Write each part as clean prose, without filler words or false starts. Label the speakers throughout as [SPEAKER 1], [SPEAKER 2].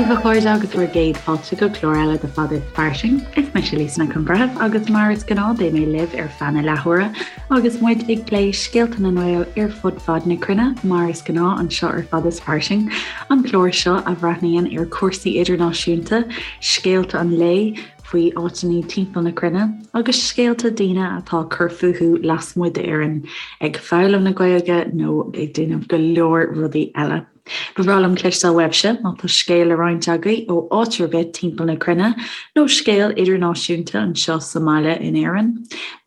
[SPEAKER 1] daoibh a chairde agus bhur gcéad fáilte go clár eile de Fada is Fairsing. Is mise Lisa Nic an Bhreithimh agus mar is gnáth beidh mé libh ar feadh na leathuaire agus muid ag plé scéalta na nGael ar fud fad na cruinne mar is gnáth anseo ar Fada is Fairsing, an clár seo a bhreathnaíonn ar chúrsaí idirnáisiúnta, scéalta an lae, faoi áiteanna timpeall na cruinne agus scéalta daoine atá ag cur fúthu lasmuigh d'Éirinn, ag foghlaim na Gaeilge nó ag déanamh go leor rudaí eile. Ba bhreá liom cloisteáil uaibhse má tá scéal le roinnt agaibh ó áit ar bith timpeall na cruinne nó scéal idirnáisiúnta anseo sa mbaile in Éirinn.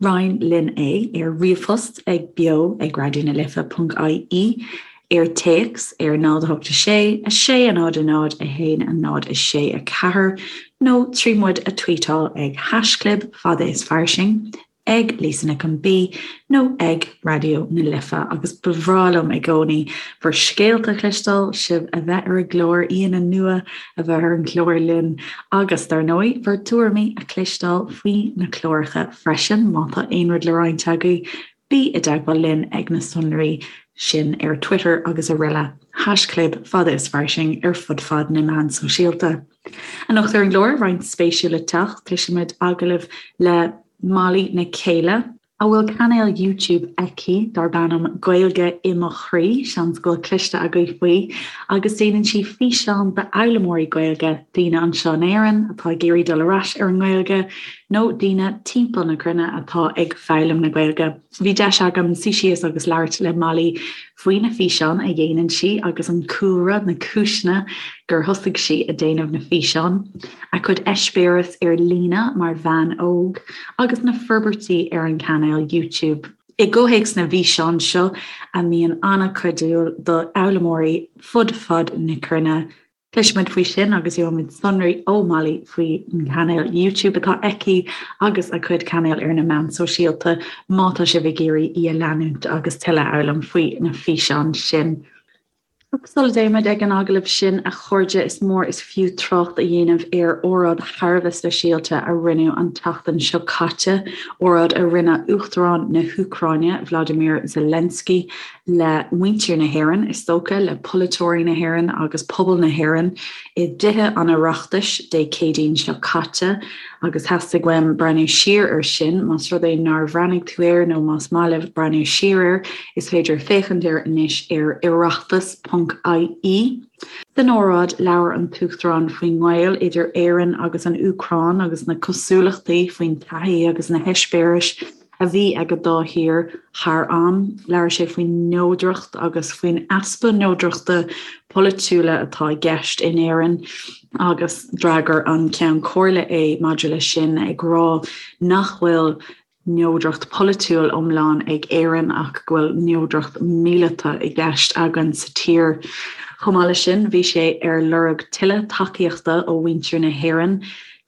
[SPEAKER 1] Roinn linn é ar ríomhphost ag beo ag raidió na life ponc ie, ar téacs ar 0 8 6 6 0 0 1 0 6 4 nó trí muid a tweetáil ag haischlib fada is fairsing. ag Lisa Nic an B nó ag Raidió na Life agus ba bhreá liom i gcónaí bhur scéalta a chloisteáil, sibh a bheith ar an gclár, aíonna nua a bheith ar an gclár linn agus, dar ndóigh, bhur dtuairimí a chloisteáil faoi na cláracha freisin. Má tá aon rud le roinnt agaibh, bí i dteagmháil linn ag na sonraí sin ar Twitter agus araile. Haischlib fada is fairsing ar fud fad na meán sóisialta. Anocht ar an gclár, roinnt spéisiúil le teacht, cloisfimid agallamh le Molly Nic Céile, a bhfuil cainéal YouTube aici darb ainm Gaeilge i mo Chroí, seans go bhfuil cloiste agaibh faoi, agus déanann sí físeáin d'fhoghlaimeoirí Gaeilge, daoine anseo in Éirinn atá ag iarraidh dul ar ais ar an nGaeilge nó daoine timpeall na cruinne atá ag foghlaim na Gaeilge. Bhí deis agam suí síos agus labhairt le Molly faoi na físeáin a dhéanann sí agus an cúlra, na cúiseanna gur thosaigh sí ag déanamh na bhfíseán, a cuid eispéireas ar líne mar bhean óg agus na forbairtí ar an cainéal YouTube. I gcomhthéacs na bhfíseán seo a mbíonn an-chuidiúil do fhoghlaimeoirí fud fad na cruinne, Cloisfimid faoi sin agus gheobhaimid sonraí ó Molly faoin gcainéal YouTube atá aici agus a cuid cainéal ar na meáin sóisialta má tá sibh ag iarraidh í a leanúint agus tuilleadh a fhoghlaim faoi na físeáin sin. Ach sula dtéimid ag an agallamh sin, a chairde, is mór is fiú trácht a dhéanamh ar óráid thar a bheith speisialta a rinneadh an tseachtain seo caite, óráid a rinne Uachtarán na hÚcráine, Vladimir Zelensky, le muintir na hÉireann, is dócha, le polaiteoirí na hÉireann agus pobal na hÉireann i dTithe an Oireachtais Dé Céadaoin seo caite agus theastaigh uaim breathnú siar air sin. Más rud é nár bhreathnaigh tú air nó más maith libh breathnú siar air, is féidir féachaint air anois ar oireachtas ponc ie. San óráid, labhair an tUachtarán faoin ngaol idir Éirinn agus an Úcráin agus na cosúlachtaí faoin taithí agus na heispéiris a bhí ag an dá thír thar am. Labhair sé faoin neodracht agus faoin easpa neodrachta polaitiúla atá i gceist in Éirinn agus d'fhreagair an Ceann Comhairle é maidir leis sin ag rá nach bhfuil neodracht pholaitiúil iomlán ag Éirinn ach go bhfuil neodracht míleata i gceist againn sa tír. Chomh maith leis sin bhí sé ar lorg tuilleadh tacaíochta ó mhuintir na hÉireann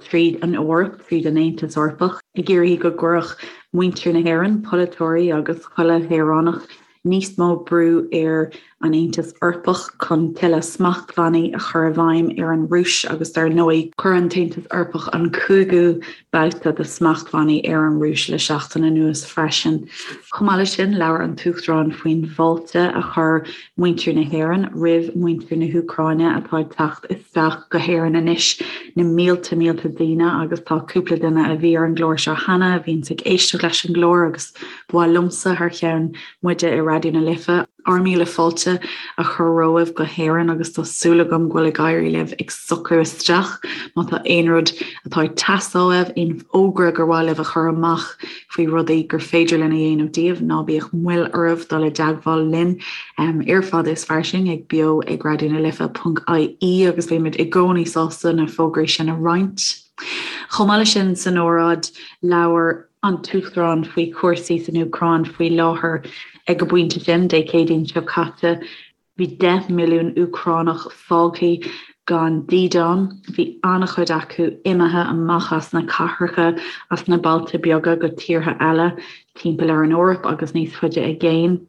[SPEAKER 1] tríd an Eoraip, tríd an Aontas Eorpach, ag iarraidh go gcuirfeadh muintir na hÉireann, polaiteoirí agus chuile shaoránach, níos mó brú ar an Aontas Eorpach chun tuilleadh smachtbhannaí a chur i bhfeidhm ar an Rúis agus dar ndóigh, chuir an tAontas Eorpach an cúigiú babhta de smachtbhannaí ar an Rúis le seachtain anuas freisin. Chomh maith leis sin, labhair an tUachtarán faoin bhfáilte a chuir muintir na hÉireann roimh mhuintir na hÚcráine atá ag teacht isteach go hÉirinn anois, na mílte mílte daoine agus tá cúpla duine a bhí ar an gclár seo cheana a bhíonns ag éisteacht leis an gclár agus ba mhaith liomsa thar cheann muide i Raidió na Life ár míle fáilte a chur romhaibh go hÉirinn agus tá súil agam go bhfuil ag éirí libh ag socrú isteach. Má tá aon rud atá ag teastáil uaibh, aon fhógra gur mhaith libh a chur amach faoi rudaí gur féidir linn a dhéanamh daoibh, ná bíodh moill oraibh dul i dteagmháil linn ar Fada is Fairsing ag beo ag raidió na life ponc ie agus beimid i gcónaí sásta na fógraí sin a roinnt. Chomh maith leis sin, san óráid, labhair an tUachtarán faoi chúrsaí san Úcráin faoi láthair. Ag an bpointe sin, Dé Céadaoin seo caite, bhí 10 milliún Úcránach fágtha gan dídean. Bhí an-chuid acu imithe amach as na cathracha, as na bailte beaga go tíortha eile timpeall ar an Eoraip agus níos faide i gcéin.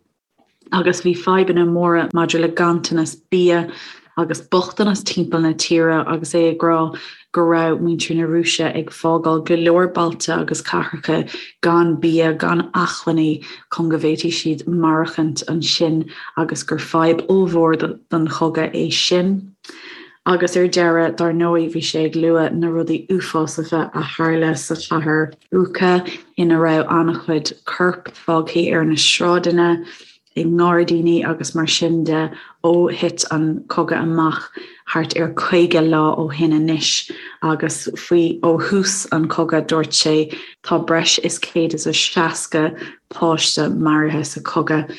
[SPEAKER 1] agus bhí fadhbanna móra maidir le ganntanas bia agus bochtanas timpeall na tíre agus é ag rá go raibh muintir na Rúise ag fágáil go leor bailte agus cathracha gan bia, gan acmhainní chun go bhféadfaidh siad maireachtaint ansin agus gur fadhb ollmhór don chogadh é sin. Agus ar deireadh, dar ndóigh, bhí sé ag lua na rudaí uafásacha a tharla sa chathair Bucha, ina raibh an-chuid corp fágtha ar na sráideanna, i ngairdíní agus mar sin de ó thit an cogadh amach thart ar 50 lá ó shin anois agus faoi ó thús an chogaidh dúirt sé tá breis is 160 páiste maraithe sa chogadh.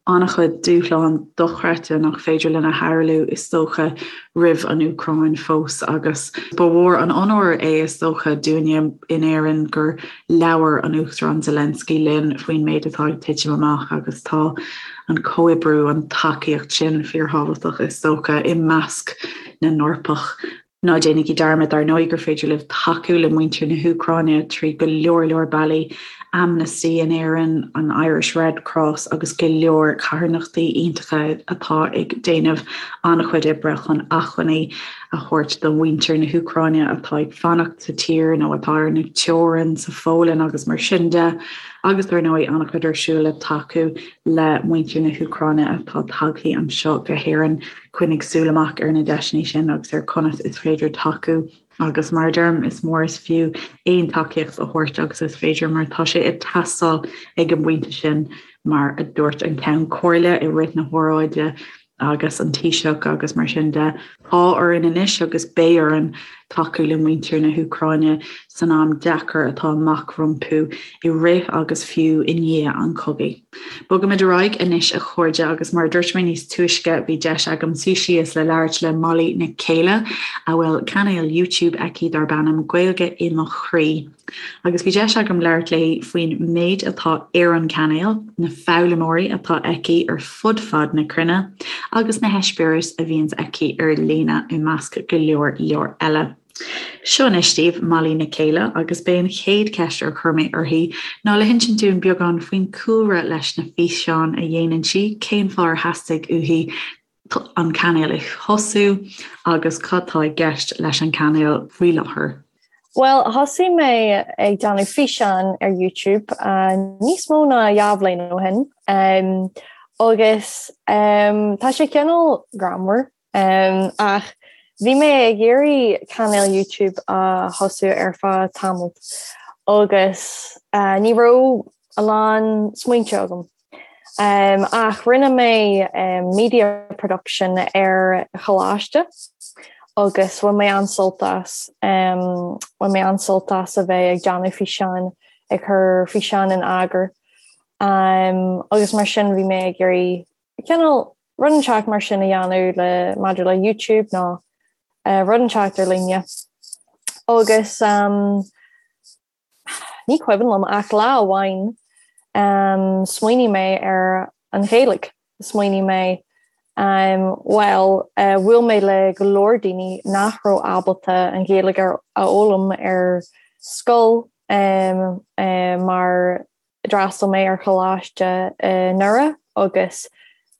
[SPEAKER 1] An-chuid dúshlán dochreidte nach féidir linn a shamhlú is dócha roimh an Úcráin fós agus ba mhór an onóir é is dócha dúinne in Éirinn gur Labhair an Uachtarán Zelensky linn faoin méid atá ag titim amach agus tá an comhoibriú, an tacaíocht sin fíorthábhachtach is dócha i measc na nEorpach. Ná déanaigí dearmad, dar ndóigh, gur féidir libh tacú le muintir na hÚcráine trí go leor leor bealaí, Amnesty in Éirinn, an Irish Red Cross agus go leor carthanachtaí iontacha atá ag déanamh an-chuid oibre chun acmhainní a thabhairt do mhuintir na hÚcráine atá ag fanacht sa tír nó atá ar na teorainn sa Pholainn agus mar sin de, agus dar ndóigh an-chuid ar siúl le tacú le muintir na hÚcráine atá tagtha anseo go hÉirinn. Coinnigh súil amach ar na deiseanna sin agus ar conas is féidir tacú agus mar a deirim, is mór is fiú aon tacaíocht a thabhairt agus is féidir mar tá sé ag teastáil ag an bpointe sin mar a dúirt an Ceann Comhairle i rith na hóráide agus an Taoiseach agus mar sin de. Tá orainn anois agus beidh orainn tacú le muintir na hÚcráine san am deacair atá amach rompu i rith agus fiú i ndiaidh an chogaidh. Bogaimid ar aghaidh anois a chairde agus mar a dúirt mé níos túisce bhí deis agam suí síos le labhairt le Molly Nic Céile a bhfuil cainéal YouTube aici darb ainm Gaeilge i mo Chroí. Agus bhí deis agam labhairt léi faoin méid atá ar an cainéal, na foghlaimeoirí atá aici ar fud fad na cruinne agus na heispéiris a bhíonns aici ar líne i measc go leor leor eile. Seo anois daoibh Molly Nic Céile agus b'é an chéad cheist ar chuir mé uirthi ná le hinsint dúinn beagán faoin cúlra leis na físeáin a dhéanann sí, cén fáth ar theastaigh uaithi an cainéal a thosú agus cad tá i gceist leis an cainéal faoi láthair.
[SPEAKER 2] Bhuel, thosaigh mé ag déanamh físeán ar YouTube níos mó ná dhá bhliain ó shin agus tá sé cineál greannmhar ach bhí mé ag iarraidh cainéal YouTube a thosú ar feadh tamall agus ní raibh a lán smaointe agam. Ach rinne mé media production ar choláiste agus bhain mé an-sult as. Bhain mé an-sult as a bheith ag déanamh físeáin, ag cur físeáin in eagar. Agus mar sin bhí mé ag iarraidh cineál rud inteacht mar sin a dhéanamh le maidir le YouTube nó rud inteacht ar líne. Agus Ní cuimhin liom ach lá amháin smaoinigh mé ar an Ghaeilge. Smaoinigh mé bhuel bhuail mé le go leor daoine nach raibh ábalta an Ghaeilge a fhoghlaim ar scoil mar D'fhreastail mé ar choláiste i nDoire agus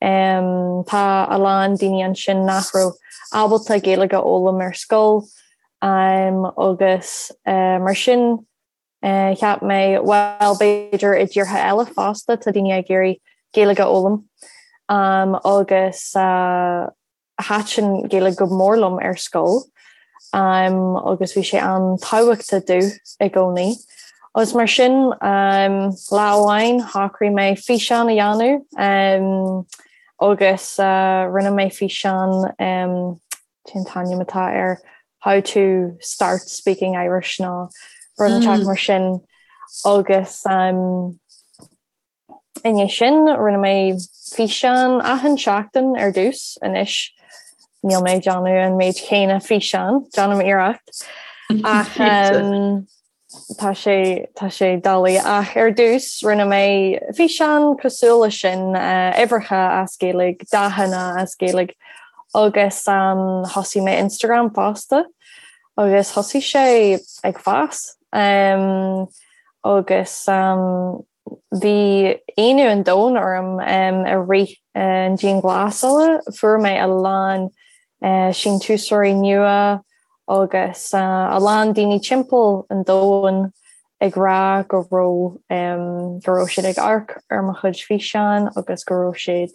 [SPEAKER 2] tá a lán daoine ansin nach raibh ábalta Gaeilge a fhoghlaim ar scoil agus mar sin cheap mé bhuel b'fhéidir i dtíortha eile fosta tá daoine ag iarraidh Gaeilge a fhoghlaim agus Thaitin Gaeilge go mór liom ar scoil agus bhí sé an-tábhachtach domh i gcónaí. Agus mar sin, lá amháin shocraigh mé físeán a dhéanamh agus rinne mé físeán, cén t-ainm atá air, How to start speaking Irish nó rud inteacht mar sin agus I ndiaidh sin, rinne mé físeán achan seachtain ar dtús. Anois, níl mé ag déanamh an méid chéanna físeán, déanaim iarracht, ach tá sé tá sé doiligh. Ach ar dtús, rinne mé físeán cosúil leis sin, uimhreacha as Gaeilge, dathanna as Gaeilge, agus thosaigh mé Instagram fosta agus thosaigh sé ag fás agus. Bhí ionadh an domhain orm i rith an dianghlasála. Fuair mé a lán síntiúsóirí nua agus a lán daoine timpeall an domhain ag rá go raibh go raibh siad ag amharc ar mo chuid físeán agus go raibh siad.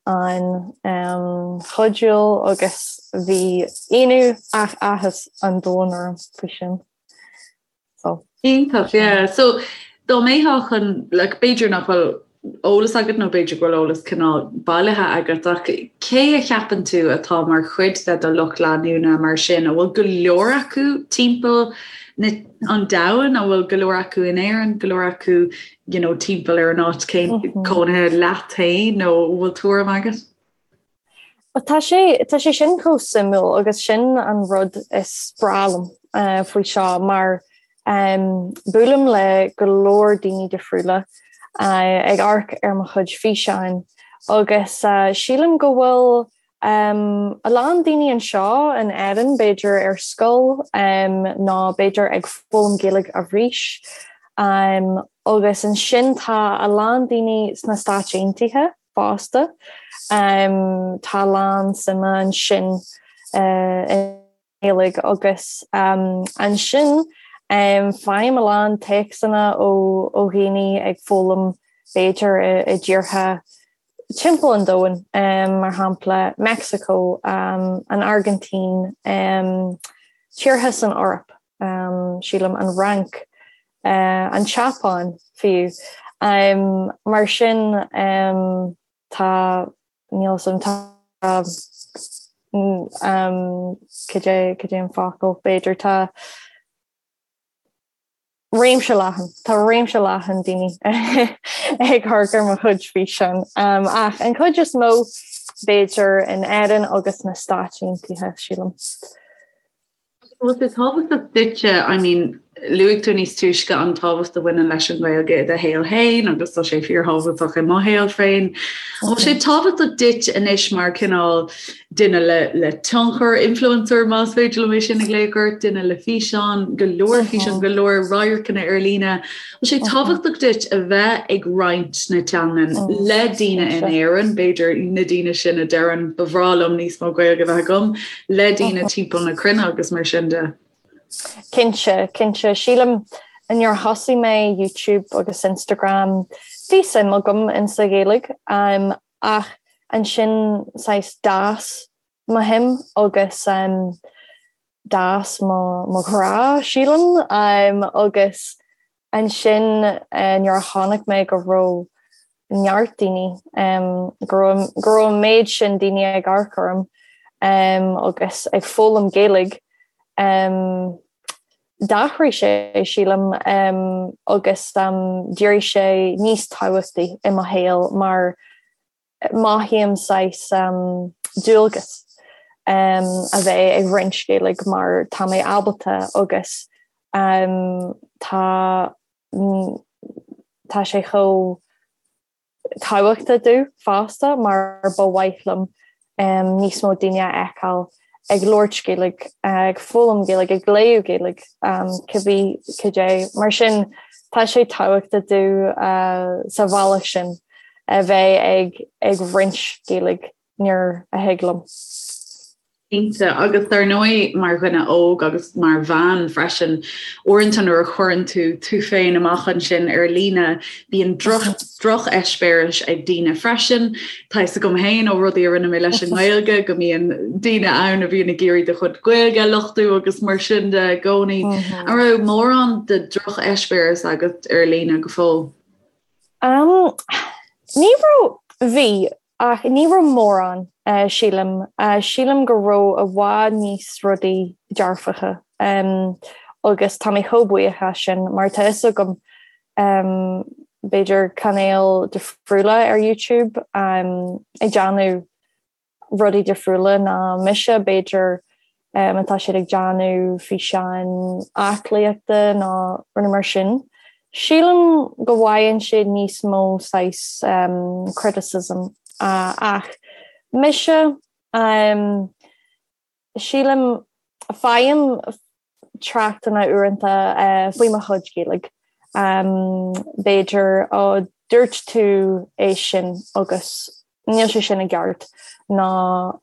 [SPEAKER 2] an-chuidiúil agus bhí ionadh ach áthas an domhain orm faoi sin.
[SPEAKER 1] So. Iontach, yeah. So dá mbeifeá chun, like, b'fhéidir nach bhfuil eolas agat nó b'fhéidir go bhfuil eolas cineál bailithe agat ach cé a cheapann tú atá mar chuid de do lucht leanúna mar sin? An bhfuil go leor acu timpeall na, an domhain? An bhfuil go leor acu in Éirinn, go leor acu you know, timpeall ar an áit cónaithe leat féin nó an bhfuil tuairim agat?
[SPEAKER 2] Tá sé tá sé sin chomh suimiúil agus sin an rud is breá liom faoi seo mar buailim le go leor daoine difriúla ag amharc ar mo chuid físeáin agus sílim go bhfuil a lán daoine anseo in Éirinn b'fhéidir ar scoil nó b'fhéidir ag foghlaim Gaeilge arís agus ansin tá a lán daoine sna Stáit Aontaithe fosta. Tá a lán suime ansin i nGaeilge agus ansin faighim a lán téacsanna ó dhaoine ag foghlaim b'fhéidir i dtíortha timpeall an domhain, mar shampla Meicsiceo, an Airgintín, tíortha san Eoraip, sílim an Fhrainc, an tSeapáin fiú. Mar sin tá, níl 'fhios a'm, tá, cad é, cad é an focal, b'fhéidir, tá réimse leathan, tá réimse leathan daoine ag amharc ar mo chuid físeán. Ach an chuid is mó b'fhéidir in Éirinn agus na Stáit Aontaithe, sílim.
[SPEAKER 1] Bhfuil sé tábhachtach duitse, I mean, luaigh tú níos túisce an tábhacht a bhaineann leis an Ghaeilge i do shaol féin agus tá sé fíorthábhachtach i mo shaol féin. An bhfuil sé tábhachtach duit anois mar cineál duine le, le tionchar, influencer más féidir liom é sin a ghlaoch ort, duine le físeán, go leor físeán, go leor radharcanna ar líne. Bhfuil sé tábhachtach duit a bheith ag roinnt na teangan le daoine in Éirinn, b'fhéidir na daoine sin a deireann ba bhreá liom níos mó Gaeilge a bheith agam, le daoine timpeall na cruinne agus mar sin de?
[SPEAKER 2] Cinnte, cinnte. Sílim nuair a thosaigh mé YouTube agus Instagram bhí suim agam in sa Ghaeilge ach ansin saghas d'fhás mo shuim agus d'fhás mo ghrá, sílim, agus ansin nuair a chonaic mé go raibh neart daoine, go raibh go raibh an méid sin daoine ag amharc orm agus ag foghlaim Gaeilge, d'athraigh sé, sílim, agus d'éirigh sé níos tábhachtaí i mo shaol mar mothaím saghas dualgas a bheith ag roinnt Gaeilge mar tá mé ábalta agus tá tá sé chomh tábhachtach domh fosta mar ba mhaith liom níos mó daoine a fheiceáil ag labhairt Gaeilge, ag foghlaim Gaeilge, ag léamh Gaeilge, cibé cad é. Mar sin tá sé tábhachtach domh sa bhealach sin a bheith ag ag roinnt Gaeilge nuair a thig liom.
[SPEAKER 1] Cinnte, agus dar ndóigh mar dhuine óg agus mar bhean freisin, uaireanta nuair a chuireann tú tú féin amach ansin ar líne, bíonn drocheispéiris ag daoine freisin. Tá fhios agam féin ó rudaí a rinne mé leis an nGaeilge go mbíonn daoine ann a bhíonn ag iarraidh do chuid Gaeilge a lochtú agus mar sin de i gcónaí. An raibh mórán de drocheispéiris agat ar líne go fóill?
[SPEAKER 2] Um, ní raibh, bhí, ach ní raibh mórán, sílim. Sílim go raibh i bhfad níos rudaí dearfacha agus tá mé chomh buíoch as sin mar tá fhios agam b'fhéidir cainéil difriúla ar YouTube ag déanamh rudaí difriúla ná mise, b'fhéidir má tá siad ag déanamh físeáin aclaíochta nó rudaí mar sin. Sílim go bhfaigheann siad níos mó saghas criticism ach mise, sílim, faighim tráchtanna uaireanta faoi mo chuid Gaeilge. B'fhéidir, ó dúirt tú é sin agus níl sé sin i gceart nó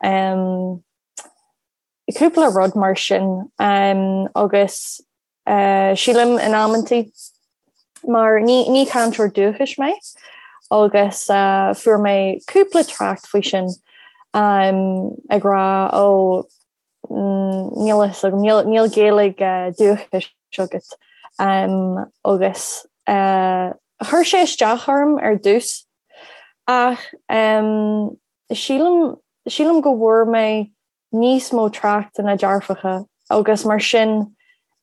[SPEAKER 2] cúpla rud mar sin agus sílim in amantaí mar ní ní cainteoir dúchais mé. Agus fuair mé cúpla trácht faoi sin ag rá ó níl a fhios agam, níl Gaeilge dúchais agat. Agus chuir sé isteach orm ar dtús ach sílim, sílim go bhfuair mé níos mó tráchtanna dearfacha agus mar sin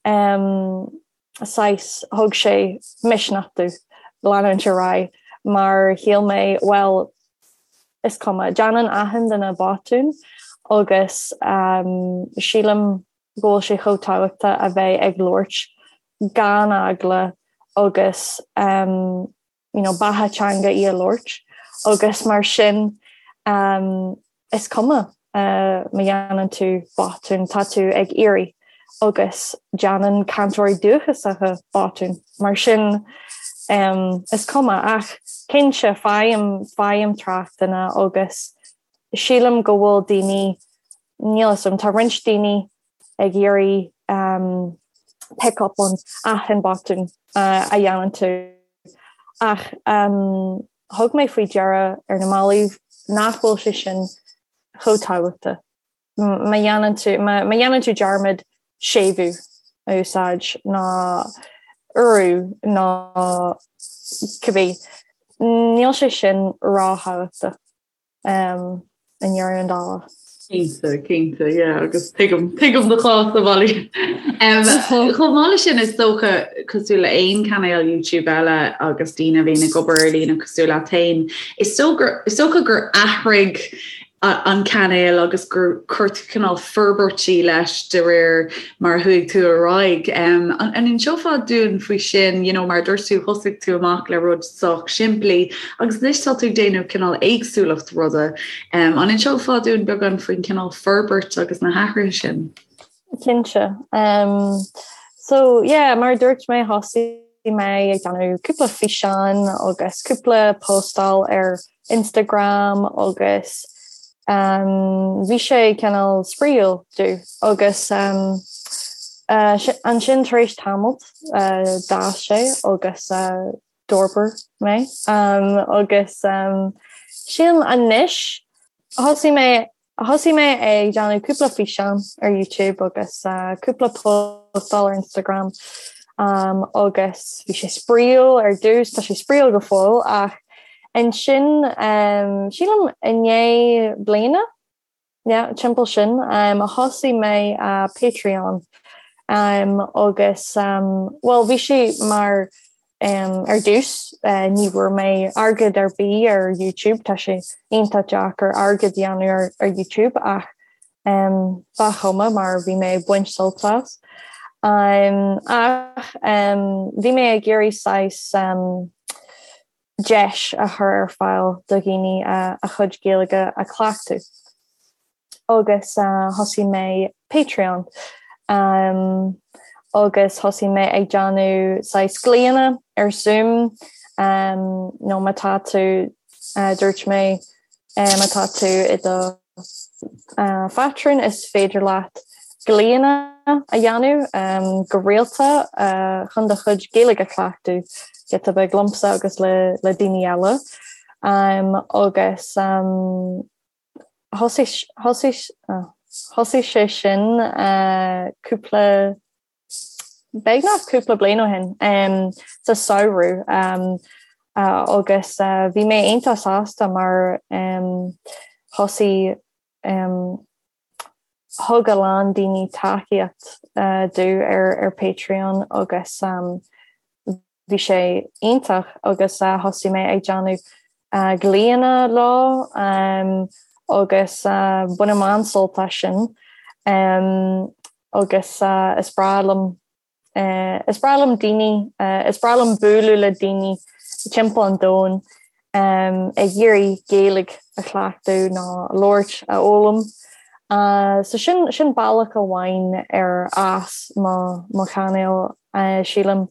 [SPEAKER 2] saghas thug sé misneach domh leanúint ar aghaidh mar shíl mé bhuel is cuma, déanann achan duine botún agus sílim go bhfuil sé chomh tábhachtach a bheith ag labhairt gan eagla agus you know, beatha teanga í a labhairt agus mar sin um, is cuma uh, má dhéanann tú botún, tá tú ag iarraidh agus déanann cainteoirí dúchasacha botún. Mar sin um, is cuma ach cinnte faighim faighim tráchtanna agus sílim go bhfuil daoine níl a fhios agam, tá roinnt daoine ag iarraidh um, pick up on achan botún uh, a dhéanann tú. Ach um, thug mé faoi deara ar na mallaibh nach bhfuil sé sin chomh tábhachtach. Má dhéanann tú, má dhéanann tú dearmad séimhiú a úsáid nó urú nó cibé, níl sé sin ró-thábhachtach. i ndeireadh na dála.
[SPEAKER 1] Cinnte, cinnte, yeah, agus tuigim, tuigim do chás a Mholly. Chomh maith leis sin is dócha cosúil le aon cainéal YouTube eile agus daoine a bhíonn ag obair ar líne cosúil leat féin, is dócha gur athraigh an cainéal agus gur chuir tú cineál forbairtí leis de réir mar a chuaigh tú ar aghaidh. An inseofá dúinn faoi sin, you know, mar a dúirt tú, thosaigh tú amach le rud sách simplí agus anois tá tú ag déanamh cineál éagsúlacht ruda. An inseofá dúinn beagán faoin cineál forbairt agus na hathruithe sin?
[SPEAKER 2] Cinnte. So, yeah, mar a dúirt mé, thosaigh mé ag déanamh cúpla físeán agus cúpla postáil ar Instagram agus bhí sé cineál spraíúil domh agus ansin tar éis tamalt d'fhás sé agus d'fhorbair mé agus sílim anois thosaigh mé Thosaigh mé ag déanamh cúpla físeán ar YouTube agus cúpla postáil ar Instagram agus bhí sé spraíúil ar dtús, tá sé spraíúil go fóill ach ansin sílim i ndiaidh bliana, yeah, timpeall sin, thosaigh mé Patreon agus bhuel bhí sé mar Ar dtús, ní bhfuair mé airgead ar bith ar YouTube, tá sé iontach deacair airgead a dhéanamh ar YouTube ach ba chuma mar bhí mé ag baint sult as. Ach bhí mé ag iarraidh saghas deis a chur ar fáil do dhaoine a chuid Gaeilge a chleachtadh. agus thosaigh mé Patreon agus thosaigh mé ag déanamh saghas glaonna ar Zoom nó má tá tú, dúirt mé, má tá tú i do phátrún is féidir leat glaonna a dhéanamh go rialta chun do chuid Gaeilge a chleachtadh giota beag liomsa agus le daoine eile agus. Thosaigh sé sin cúpla, beagnach cúpla bliain ó shin, sa samhradh agus bhí mé iontach sásta mar thosaigh, thug a lán daoine tacaíocht domh ar Patreon agus Bhí sé iontach agus thosaigh mé ag déanamh glaonna leo agus bainim an-sult as sin agus is breá liom is breá liom daoine, is breá liom bualadh le daoine timpeall an domhain ag iarraidh Gaeilge a chleachtadh nó a labhairt, a fhoghlaim. So sin sin bealach amháin ar fhás mo mo chainéal sílim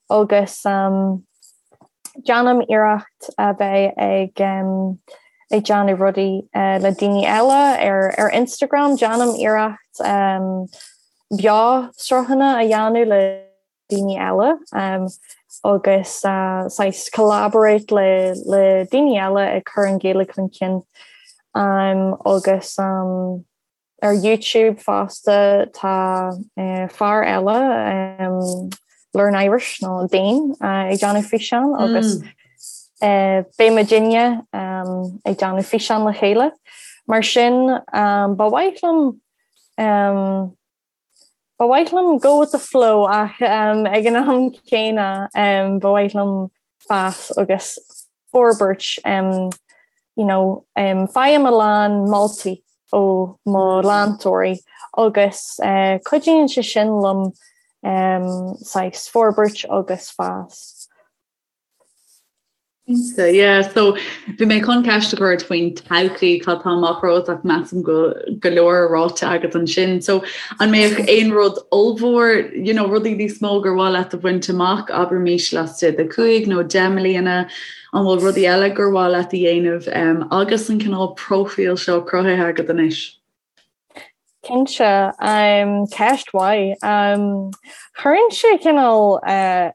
[SPEAKER 2] agus déanaim iarracht a bheith ag ag déanamh rudaí le daoine eile ar ar Instagram, déanaim iarracht beo sruthanna a dhéanamh le daoine eile. agus saghas collaborate le le daoine eile ag cur an Ghaeilge chun cinn agus ar YouTube fosta tá fear eile Learn Irish nó Dane ag déanamh físeán agus beidh muidinne ag déanamh físeán le chéile. Mar sin ba mhaith liom Ba mhaith liom go with the flow ach ag an am céanna ba mhaith liom fás agus forbairt you know faighim a lán moltaí ó mo leantóirí agus cuidíonn sé sin liom saghas forbairt agus fás.
[SPEAKER 1] Cinnte, yeah. So, bhí mé chun ceist a chur ort faoin todhchaí, cad tá amach romhat ach measaim go go leor ráite agat ansin. So, an mbeadh aon rud ollmhór, you know, rudaí níos mó gur mhaith leat a bhaint amach, abraimis laistigh de 5 nó 10 mbliana, an bhfuil rudaí eile gur mhaith leat a dhéanamh um, agus an cineál próifíl seo cruthaithe agat anois?
[SPEAKER 2] Cinnte, ceist mhaith. Cuireann sé cineál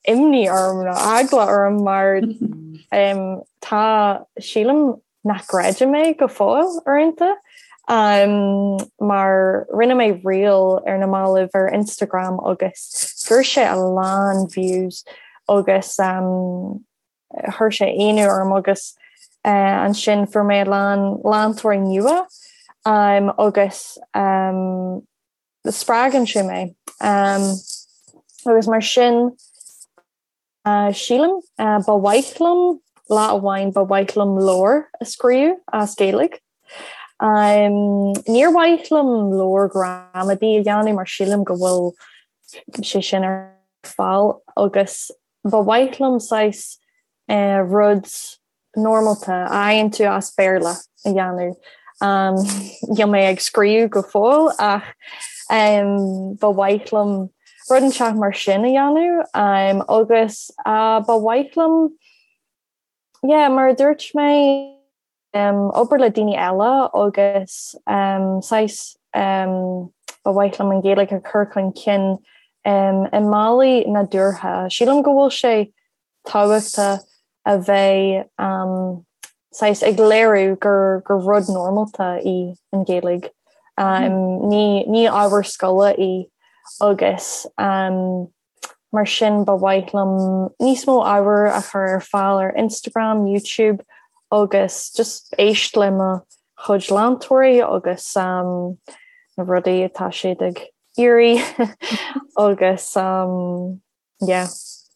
[SPEAKER 2] imní orm nó eagla orm mar tá, sílim nach gcreidim é go fóill uaireanta mar rinne mé reel ar na mallaibh ar Instagram agus fuair sé a lán views agus chuir sé ionadh orm agus ansin fuair mé a lán leantóirí nua agus spreagann sé mé agus mar sin sílim ba mhaith liom lá amháin ba mhaith liom leabhar a scríobh as Gaeilge. Níor mhaith liom leabhar gramadaí a dhéanamh mar sílim go bhfuil sé sin ar fáil agus Ba mhaith liom saghas rud normálta a fhaigheann tú as Béarla a dhéanamh. Níl mé ag scríobh go fóill ach ba mhaith liom rud inteacht mar sin a dhéanamh agus ba mhaith liom, yeah, mar a dúirt mé, obair le daoine eile agus saghas ba mhaith liom an Ghaeilge a chur chun cinn i mbealaí nádúrtha. Sílim go bhfuil sé tábhachtach a bheith saghas ag léiriú gur gur rud normálta í an Ghaeilge. Ní ábhar scoile í agus Mar sin ba mhaith liom níos mó ábhair a chur ar fáil ar Instagram, YouTube agus just éist le mo chuid leantóirí agus na rudaí atá siad ag iarraidh agus yeah,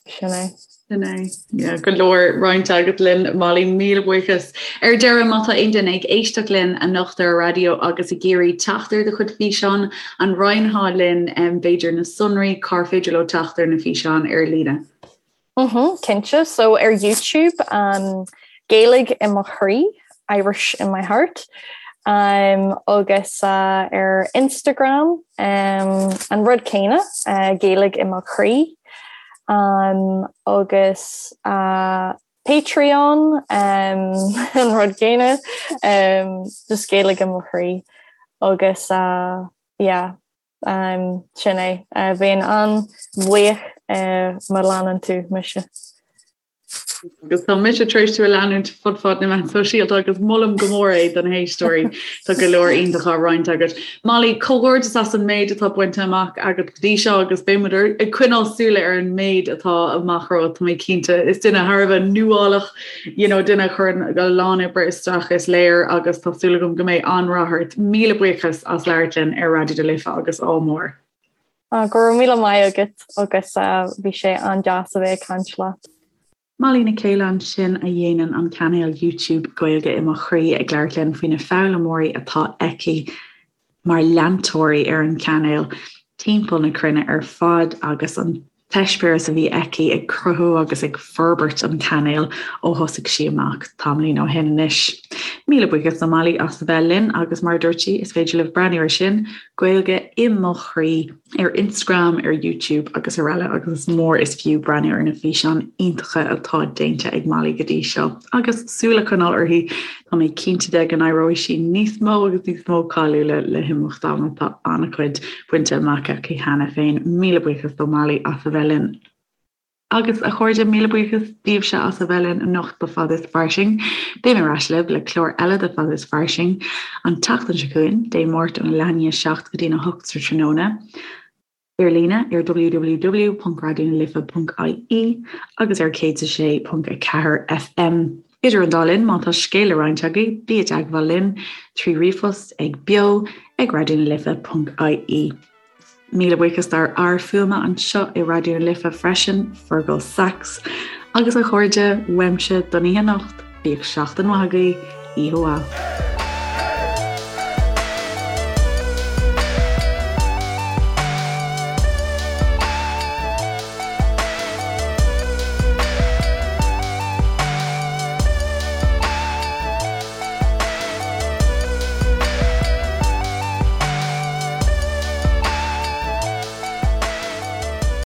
[SPEAKER 2] sin é.
[SPEAKER 1] Sin é. Yeah, go leor roinnte agat linn, Molly, míle buíochas. Ar deireadh, má tá aon duine ag éisteacht linn anocht ar an raidió agus ag iarraidh teacht ar do chuid físeán, an roinnfeá linn b'fhéidir na sonraí, cár féidir leo teacht ar na físeáin ar líne?
[SPEAKER 2] Mhm, cinnte. So ar YouTube, um, Gaeilge i mo chroí, Irish in my heart. Um, agus uh, ar Instagram, um, an rud céanna, uh, Gaeilge i mo chroí. Um, agus uh, Patreon um, an rud céanna um, just Gaeilge i mo chroí agus uh, yeah, um, sin é uh, bheinn an-bhuíoch uh, má leanann tú mise.
[SPEAKER 1] Agus tá mise tar éis tú a leanúint fud fad na meán sóisialta agus molaim go mór é do na héisteoirí Tá go leor iontach á roinnt agat. Molly, comhghairdeas as an méid atá bainte amach agat go dtí seo agus beidh muid ag coinneáil súile ar an méid atá amach romhat tá mé cinnte. Is duine thar a bheith nuálach, you know, duine a chuireann a lán oibre isteach is léir agus tá súil agam go mbeidh an-rath ort. Míle buíochas as labhairt linn ar Raidió na Life agus ádh mór.
[SPEAKER 2] Go raibh míle maith agat agus bhí sé an-deas a bheith ag caint leat.
[SPEAKER 1] Molly Nic Céile ansin a dhéanann an cainéal YouTube Gaeilge i mo Chroí ag labhairt linn faoi na foghlaimeoirí atá aici mar leantóirí ar an chainéal timpeall na cruinne ar fad agus an t-eispéireas a bhí aici ag cruthú agus ag forbairt an chainéil ó thosaigh sí amach tamaillín ó shin anois. Míle buíochas do Molly as a bheith linn agus mar a dúirt sí is féidir libh breathnú ar sin, Gaeilge i mo Chroí. ar Instagram, ar YouTube agus araile agus is mór is fiú breathnú ar na físeáin iontacha atá déanta ag Molly go dtí seo agus súil a choinneáil uirthi, tá mé cinnte de go n-éireoidh sí níos mó agus níos mó cáiliúla le himeacht ama, tá an-chuid bainte amach aici cheana féin. Míle buíochas do Molly as a bheith linn. Agus a chairde, míle buíochas daoibhse as a bheith linn anocht do Fada is Fairsing. Beidh mé ar ais libh le clár eile de Fada is Fairsing an tseachtain seo chugainn, Dé Máirt óna leath i ndiaidh a 7 go dtí'n 8 sa tráthnóna, ar líne ar www.raidionalife.ie agus ar 106.4 FM. Idir an dá linn, má tá scéal le roinnt agaibh, bí i dteagmháil linn trí ríomhphost ag beo ag raidionalife.ie. Míle buíochas dár fhear fuaime anseo i Raidió na Life freisin, Fergal Sachs. Agus a chairde, uaimse don oíche anocht, bíodh seachtain mhaith agaibh, oíche mhaith.